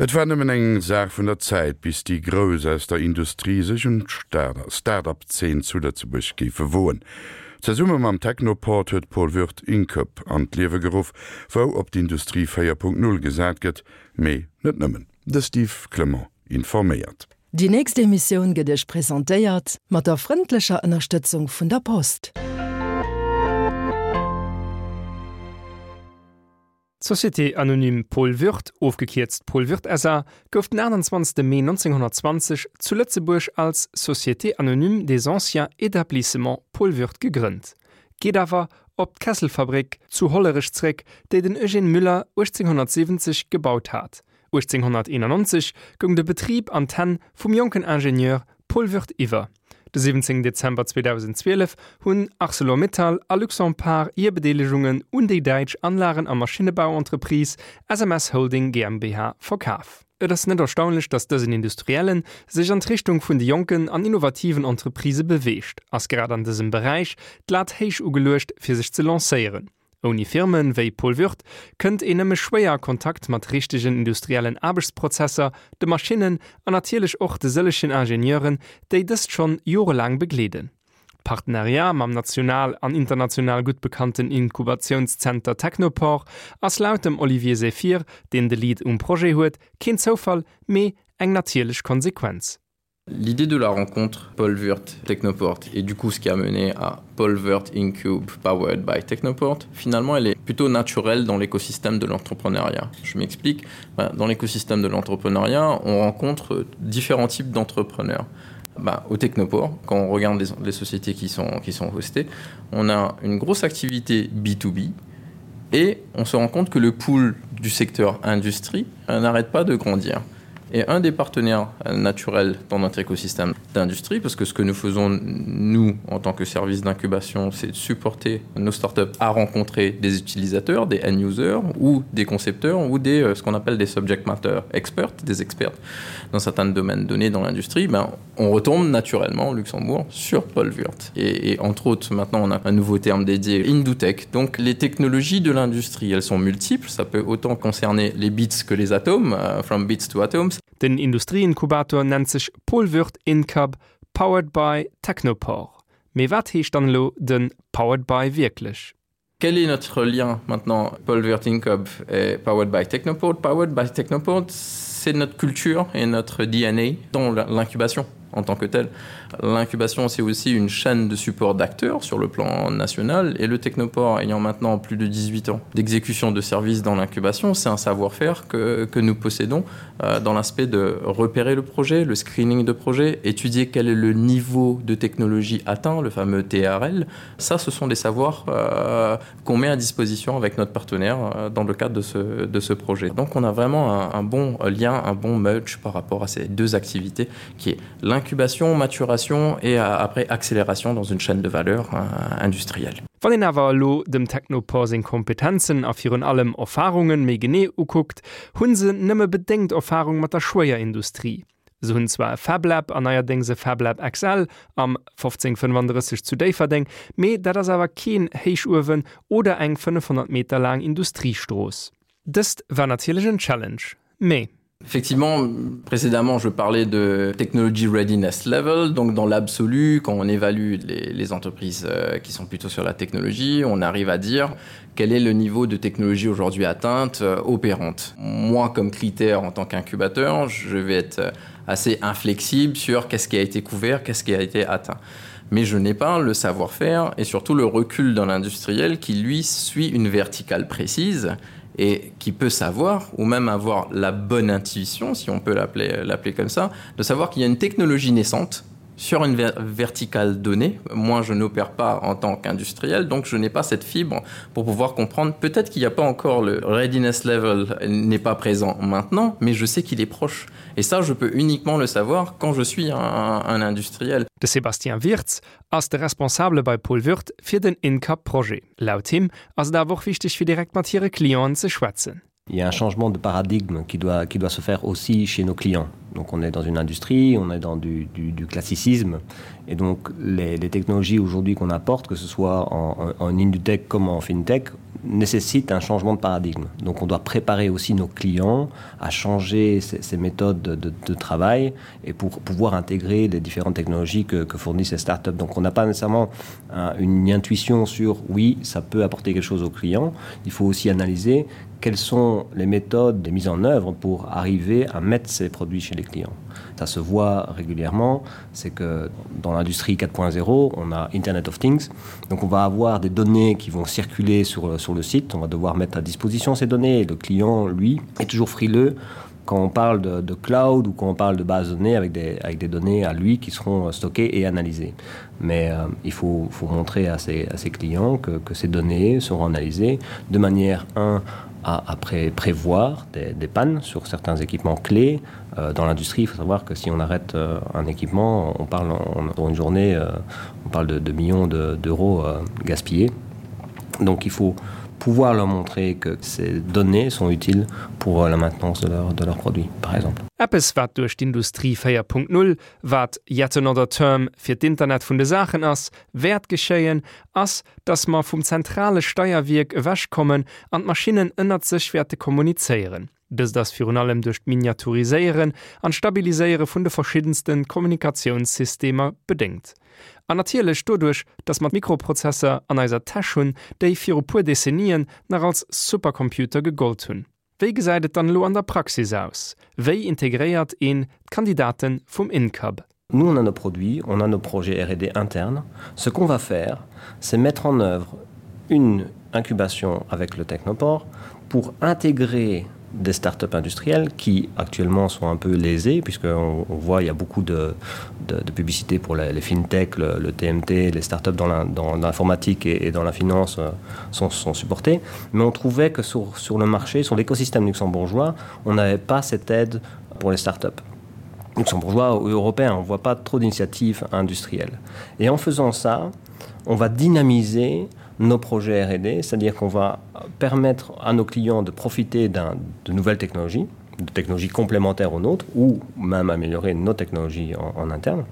Et war nëmmen eng Saach vun der Zäit, bis déi Grouss aus der Industrie sech un d'Start-up-Zeen zu Lëtzebuerg géife woen. Zesumme mam Technoport huet Paul Würth Incub an d'Liewe geruff, wou op d'Industrie 4.0 gesat gëtt, mee net nëmmen. De Steve Clement informéiert. Déi nächst Emissioun gëtt Iech presentéiert mat der frëndlecher Ënnerstëtzung vun der Post. D'Société anonyme Paul Würth, ofgekierzt Paul Würth SA. gouf den 28 Mee 1920 zu Lëtzebuerg als Société anonyme des anciens établissements Paul Würth gegrënnt, geet awer op d'Kesselfabrik zu Hollerech zréck, déi den Eugène Müller 1870 gebaut hat. 1891 goung de Betrib an d'Hänn vum jonken Ingenieur Paul Würth iwwer. De 17 Dezember 2012 hunn Arcelor-Mittal a Luxempart hir Bedeelegungen un déi däitsch Anlagen a Maschinnebauentreprise SMS Holding GmbH verkaf. Et ass net erstaunlech, datt dësen Industriellen sech an d'Richtung vun de jonken an innovativen Entreprisë beweegt, ass grad an dësem Beräich d'Lat héich ugeluecht fir sech ze lancéieren. Ouni Firme wéi Paul Würth kënnt een nëmme schwéier a Kontakt mat richtegen industriellen Aarbechtsprozesser, de Maschinnen an natierlech och de sëllegen Ingenieuren, déi dëst schonn jorelaang begleeden. D'Partenariat mam national an international gutt bekannten Inkubatiounszenter Technoport ass laut dem Olivier Zephir, deen de Lead um Projet huet, keen Zoufall, mee eng natierlech Konsequenz. L'idée de la rencontre Paul Wurt Technoport et du coup ce qui a mené à Paul Wurt Incube powered by Technoport, finalement elle est plutôt naturelle dans l'écosystème de l'entrepreneuriat. Je m'explique, dans l'écosystème de l'entrepreneuriat, on rencontre différents types d'entrepreneurs. Ben, au Technoport, quand on regarde les, les sociétés qui sont, qui sont hostées, on a une grosse activité B2B et on se rend compte que le pool du secteur industrie euh, n'arrête pas de grandir et un des partenaires euh, naturels dans notre écosystème d'industrie parce que ce que nous faisons nous en tant que service d'incubation c'est de supporter nos startups à rencontrer des utilisateurs des end users ou des concepteurs ou des euh, ce qu'on appelle des subject matter experts des experts dans certains domaines donnés dans l'industrie ben on retombe naturellement au Luxembourg sur Paul Wurt et, et entre autres maintenant on a un nouveau terme dédié Indutech donc les technologies de l'industrie elles sont multiples ça peut autant concerner les bits que les atomes uh, from bits to atoms Den Industrieinkubator nennt sech Paul Würth Incub powered by Technoport. Mee wat heescht dann elo den powered by wierklech? Quel est notre lien maintenant Paul Würth Incub et powered by Technoport? Powered by Technoport, c'est notre culture et notre DNA dans l'incubation en tant que telle. L'incubation, c'est aussi une chaîne de support d'acteurs sur le plan national et le Technoport ayant maintenant plus de 18 ans d'exécution de services dans l'incubation, c'est un savoir-faire que, que nous possédons euh, dans l'aspect de repérer le projet, le screening de projet, étudier quel est le niveau de technologie atteint, le fameux TRL. Ça, ce sont des savoirs euh, qu'on met à disposition avec notre partenaire euh, dans le cadre de ce, de ce projet. Donc on a vraiment un, un bon lien, un bon merge par rapport à ces deux activités qui est l'incubation, maturation et euh, après accélération dans une chaîne de valeur euh, industrielle. Wann een awer elo dem Technopore seng Kompetenzen a virun allem Erfarunge méi genee ukuckt, hu se nëmme bedéngt Erfarung mat der Schwéierindustrie. Se hunn zwar e FabLab an neierdéngs e FabLab XL am 1535 zu Déifferdeng, mee dat ass awer keen Héichuewen oder eng 500 Meter laang Industriestrooss. Dëst war natierlech en Challenge, mee. Effectivement, précédemment, je parlais de technology readiness level. Donc dans l'absolu, quand on évalue les, les entreprises euh, qui sont plutôt sur la technologie, on arrive à dire quel est le niveau de technologie aujourd'hui atteinte euh, opérante. Moi, comme critère en tant qu'incubateur, je vais être euh, assez inflexible sur qu'est-ce qui a été couvert, qu'est-ce qui a été atteint. Mais je n'ai pas le savoir-faire et surtout le recul dans l'industriel qui lui suit une verticale précise et qui peut savoir ou même avoir la bonne intuition, si on peut l'appeler comme ça, de savoir qu'il y a une technologie naissante sur une ver verticale donnée. Moi, je n'opère pas en tant qu'industriel, donc je n'ai pas cette fibre pour pouvoir comprendre. Peut-être qu'il n'y a pas encore le readiness level n'est pas présent maintenant, mais je sais qu'il est proche. Et ça, je peux uniquement le savoir quand je suis un, un industriel. De Sébastien Wirtz ass de Responsabele bei Paul Würth fir den InCup-Projet. Laut him ass et awer och wichteg fir direkt mat hire Clienten ze schwätzen. Il y a un changement de paradigme qui doit, qui doit se faire aussi chez nos clients. Donc on est dans une industrie, on est dans du, du, du classicisme et donc les, les technologies aujourd'hui qu'on apporte, que ce soit en, en, en Indutech comme en FinTech, nécessite un changement de paradigme. Donc on doit préparer aussi nos clients à changer ces, ces méthodes de, de, de travail et pour pouvoir intégrer les différentes technologies que, que fournissent ces startups. Donc on n'a pas nécessairement un, une intuition sur oui, ça peut apporter quelque chose aux clients. Il faut aussi analyser quelles sont les méthodes de mise en œuvre pour arriver à mettre ces produits chez les clients. Ça se voit régulièrement, c'est que dans l'industrie 4.0, on a Internet of Things. Donc on va avoir des données qui vont circuler sur, sur le site, on va devoir mettre à disposition ces données et le client, lui, est toujours frileux quand on parle de, de cloud ou quand on parle de base de données avec des, avec des données à lui qui seront euh, stockées et analysées. Mais euh, il faut, faut montrer à ses, à ses clients que, que ces données seront analysées de manière 1 à, à pré prévoir des, des pannes sur certains équipements clés. Euh, dans l'industrie, il faut savoir que si on arrête euh, un équipement, on parle en, en une journée, euh, on parle de, de millions d'euros de, euh, gaspillés. Donc il faut pouvoir leur montrer que ces données sont utiles pour euh, la maintenance de leur, de leurs produits, par exemple. Eppes wat duerch d'Industrie 4.0, wat yet another term fir d'Internet vun de Saachen ass, wäert geschéien, ass, dass mer vum zentrale Steierwierk ewech kommen an d'Maschinnen ënnert sech wäerte kommunizéieren. Dëst ass virun allem duerch d'Miniaturiséieren an d'Stabiliséiere vun de verschiddenste Kommunikatiounssystemer bedéngt. An natierlech doduerch, dass mer Mikroprozesser an eiser Täsch hunn, déi viru puer Dezennien nach als Supercomputer gegollt hunn. Wéi gesäit et dann elo an der Praxis aus? Wéi integréiert een d'Kandidate vum InCub? Nous, on a nos produits, on a nos projets R&D internes. Ce qu'on va faire, c'est mettre en œuvre une incubation avec le Technoport pour intégrer des startups industrielles qui actuellement sont un peu lésées puisqu'on on voit il y a beaucoup de, de, de publicité pour les, les fintech, le, le TMT, les startups dans l'informatique et, et dans la finance euh, sont, sont supportées. Mais on trouvait que sur, sur le marché, sur l'écosystème luxembourgeois, on n'avait pas cette aide pour les startups luxembourgeois ou européens, on ne voit pas trop d'initiatives industrielles. Et en faisant ça, on va dynamiser nos projets R&D, c'est-à-dire qu'on va permettre à nos clients de profiter de nouvelles technologies, de technologies complémentaires aux nôtres ou même améliorer nos technologies en, en interne,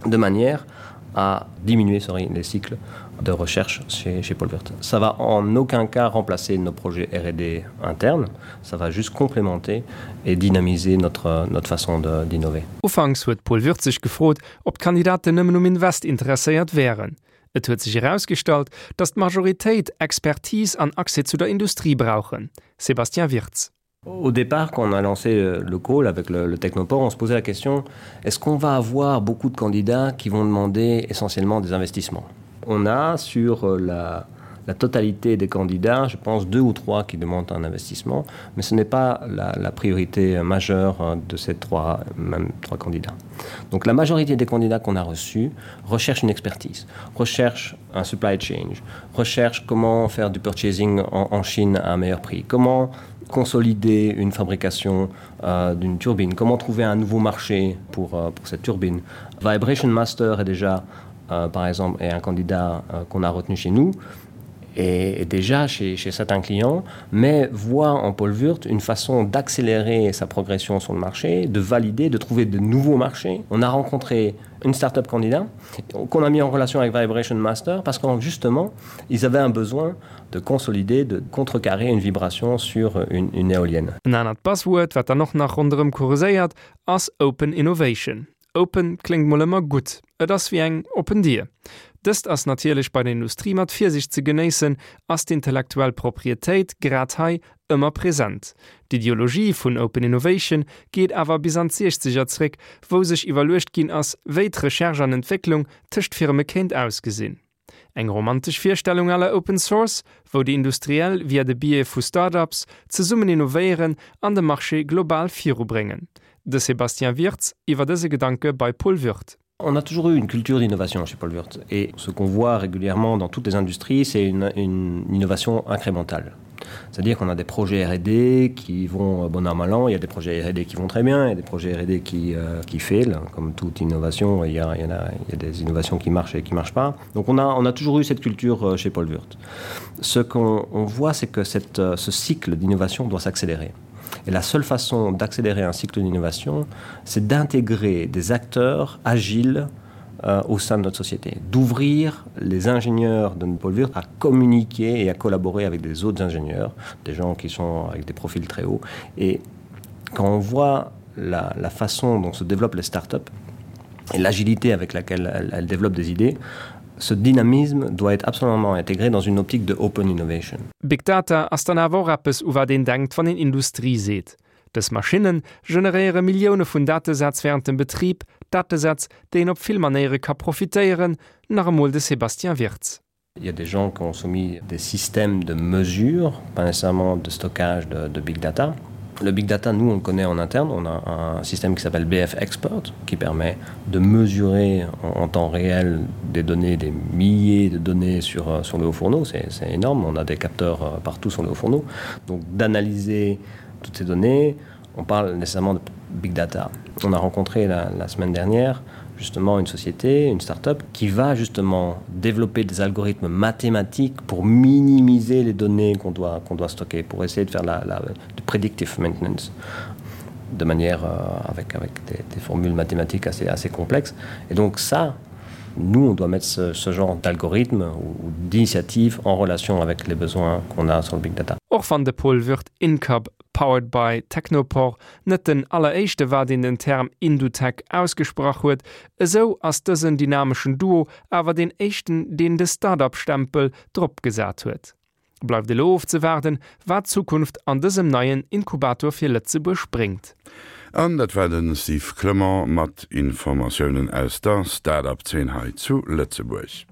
de manière à diminuer sorry, les cycles de recherche chez, chez Paul Wirth. Ça va en aucun cas remplacer nos projets R&D internes, ça va juste complémenter et dynamiser notre, notre façon d'innover. Ufanks huet Paul Würth sech gefrot, ob d'Kandidaten nëmmen um Invest interesséiert wären. Et huet sech erausgestallt, datt d'Majoritéit Expertise an Accès zu der Industrie brauchen. Sébastien Wirtz. Au départ, quand on a lancé euh, le call avec le, le Technoport, on se posait la question est-ce qu'on va avoir beaucoup de candidats qui vont demander essentiellement des investissements On a sur euh, la, la totalité des candidats, je pense deux ou trois qui demandent un investissement, mais ce n'est pas la, la priorité majeure euh, de ces trois, même trois candidats. Donc la majorité des candidats qu'on a reçus recherchent une expertise, recherchent un supply change, recherchent comment faire du purchasing en, en Chine à un meilleur prix, comment consolider une fabrication euh, d'une turbine, comment trouver un nouveau marché pour, euh, pour cette turbine. Vibration Master est déjà euh, par exemple est un candidat euh, qu'on a retenu chez nous et, et déjà chez, chez certains clients, mais voit en Paul Wurt une façon d'accélérer sa progression sur le marché, de valider, de trouver de nouveaux marchés. On a rencontré une start-up candidat qu'on a mis en relation avec Vibration Master parce qu'en justement, ils avaient un besoin de consolider, de contrecarrer une vibration sur une, une éolienne. En anert Buzzword, wat dann och nach ronderëm kurséiert, ass Open Innovation. Open kléngt mol ëmmer gutt, et ass wéi eng oppen Dier. Dëst ass natierlech bei der Industrie mat Virsiicht ze genéissen, ass d'intellektuell Proprietéit grad hei ëmmer present. D'Ideologie vun Open Innovation geet awer bis an d'Siechzeger zréck, wou sech iwwerluecht ginn ass, wéi d'Recherche an Entwécklung tëscht Firme kéint ausgesinn. Eng romantesch Virstellung à la Open Source, wou déi Industriell via de Biais vu Start-ups zesummen innovéieren an de Marché global virubréngen. De Sébastien Wirtz iwwer dëse Gedanke bei Paul Würth. On a toujours eu une culture d'innovation chez Paul Würth et ce qu'on voit régulièrement dans toutes les industries, c'est une, une innovation incrémentale. C'est-à-dire qu'on a des projets R&D qui vont euh, bon an mal an, il y a des projets R&D qui vont très bien, il y a des projets R&D qui, euh, qui fail, comme toute innovation, il y, a, il, y en a, il y a des innovations qui marchent et qui marchent pas. Donc on a, on a toujours eu cette culture euh, chez Paul Wurth. Ce qu'on voit, c'est que cette, euh, ce cycle d'innovation doit s'accélérer. Et la seule façon d'accélérer un cycle d'innovation, c'est d'intégrer des acteurs agiles. euh, au sein de notre société, d'ouvrir les ingénieurs de Paul Wurt à communiquer et à collaborer avec des autres ingénieurs, des gens qui sont avec des profils très hauts. Et quand on voit la, la façon dont se développent les startups et l'agilité avec laquelle elles, elles développent des idées, ce dynamisme doit être absolument intégré dans une optique de open innovation. Big Data ass dann awer och eppes, u wat een denkt, wann een Industrie seet. Dës Maschinne generéiere Millioune vun Datesätz wärend dem Betrib, Datesätz, déi een op vill Manéiere ka profitéieren, nach emol de Sébastien Wirtz. Il y a des gens qui ont soumis des systèmes de mesure, pas nécessairement de stockage de, de big data. Le big data, nous, on le connaît en interne. On a un système qui s'appelle BF Expert qui permet de mesurer en, en temps réel des données, des milliers de données sur, euh, sur le haut fourneau. C'est énorme. On a des capteurs euh, partout sur le haut fourneau. Donc d'analyser toutes ces données, on parle nécessairement de big data. On a rencontré la, la semaine dernière justement une société, une start-up qui va justement développer des algorithmes mathématiques pour minimiser les données qu'on doit, qu'on doit stocker, pour essayer de faire la, la de predictive maintenance de manière euh, avec, avec des, des formules mathématiques assez, assez complexes. Et donc ça, nous, on doit mettre ce, ce genre d'algorithme ou, ou d'initiative en relation avec les besoins qu'on a sur le big data. Och wann de Paul Würth Incub powered by Technoport net den alleréischte war deen den Term Indutech ausgesprach huet, esou ass dësen dynameschen Duo awer deen éischten deen de Start-up-Stempel drop gesat huet. Bleift elo ofzewaarden, wat d'Zukunft an dësem neien Inkubator fir Lëtzebuerg bréngt. An dat war de Steve Clement mat Informatiounen aus der Start-up-Zeen hei zu Lëtzebuerg.